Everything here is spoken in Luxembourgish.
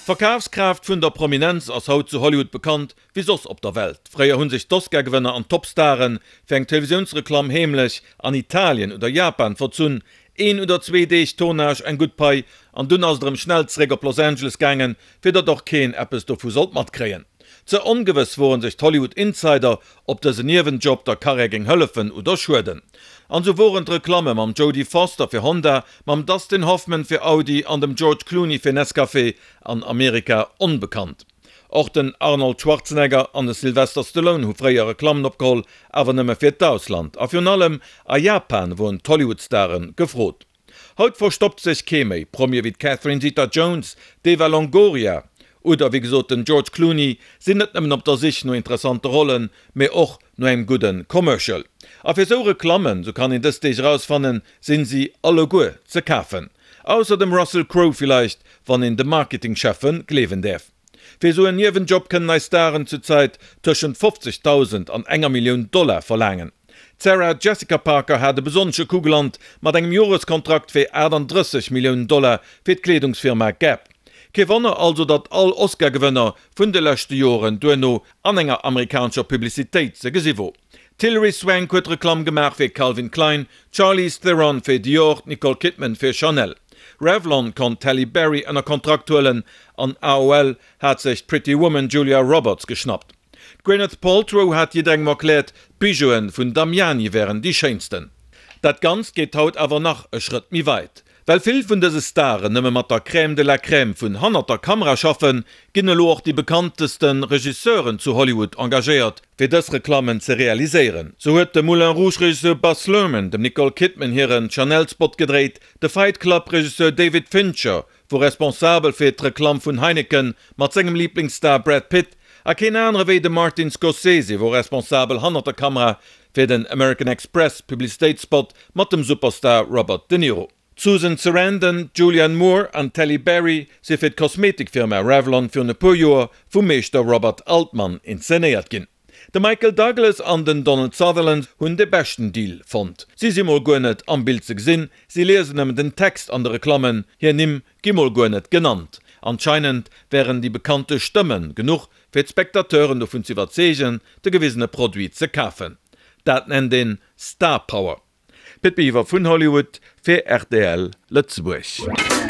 D'Verkafskraaft vun der Prominenz ass haut zu Hollywood bekannt wéi soss op der Welt. Fréier hu sech d'Oscar-Gewënner an d'Topstare fir eng Televisiounsreklamm heemlech an Italien oder Japan verzunn, een oder zwee Deeg Tournage, eng gutt Pai an dunn ass et erëm schnell zeréck op Los Angeles gaangen, fir datt och keen eppes dovu sollt matkréien. Ze ongewëss woren sech d'Hollywood Insider, ob dësen Niewenjob der Karriär géing hëllefen oder schueden. An sou woren d'Reklamme mam Jodie Foster fir Honda, mam Dustin Hoffman fir Audi an dem George Clooney fir Nescafé an Amerika onbekannt. Och den Arnold Schwarzenegger an de Sylvester Stallone hu fréier Reklammen opgeholl, awer nëmme fir d'Ausland. A virun allem a Japan woren d'Hollywood-Stare gefrot. Haut verstoppt sech kee méi. Promie wéi d'Catherine Zeta-Jones, d'Eva Longoria oder wéi gesot den George Clooney sinn net nëmmen op der Sich no interessante Rollen, mee och no engem gudde Commercial. A fir sou Reklammen, sou kann een dës Deeg erausfannen, sinn si alleguer ze kafen. Ausser dem Russell Crowe villeicht, wann een de Marketingcheffen gleewen däerf. Fir esou en Niewenjob kënnen eis Staren zur Zäit tëschent 50.000 an enger Millioun Dollar verlaangen. D'Sarah Jessica Parker hat e besonnesche Coup gelant mat engem Joreskontrakt fir 38 Milliounen Dollar fir d'Kleedungsfirma Gap. Kee Wonner also, datt all Oscar-Gewënner vun de leschte Joren duerno an enger amerikanescher Publicitéit ze gesi wor. D'Hilary Swank huet Reklamm gemaach fir Calvin Klein, d'Charlize Theron fir Dior, d'Nicole Kidman fir Chanel. Revlon konnt d'Halle Berry ënner Kontrakt huelen an AOL hat sech d'Pretty Woman Julia Roberts geschnappt. D'Gwyneth Paltrow hat jidderengem erkläert, d'Bijouen vun Damiani wären déi schéinsten. Dat Ganzt geet haut awer nach e Schrëtt méi weit. Well vill vun dëse Staren nëmme mat der Crème de la Crème vun hannert der Kamera schaffen, ginn elo och déi bekannteste Regisseuren zu Hollywood engagéiert, fir dës Reklammen ze realiséieren. Sou huet de Moulin Rouge-Regisseur Baz Luhrmann dem Nicole Kidman hiren Chanel-Spot gedréit, de Fight Club-Regisseur David Fincher wor responsabel fir d'Reklamm vun Heineken mat sengem Liblingsstar Brad Pitt a keen anere wéi de Martin Scorsese wor responsabel hannert der Kamera fir den American Express Publicitéitsspot mat dem Superstar Robert De Niro. D'Susan Sarandon, d'Julianne Moore an d'Halle Berry si fir d'Kosmetikfirma Revlon virun e puer Joer vum Meeschter Robert Altman inszenéiert ginn. De Michael Douglas an den Donald Sutherland hunn de beschten Deal fonnt. Si si mol guer net am Bild ze gesinn, si liesen nëmmen den Text an de Reklammen, hir Nimm gi mol guer net genannt. Anscheinend wären déi bekannte Stëmme genuch fir d'Spectateuren dovun ze iwwerzeegen, de gewisene Produit ze kafen. Dat nennt een Star Power. Pit Biwer vun Hollywood fir rtl Lëtzebuerg.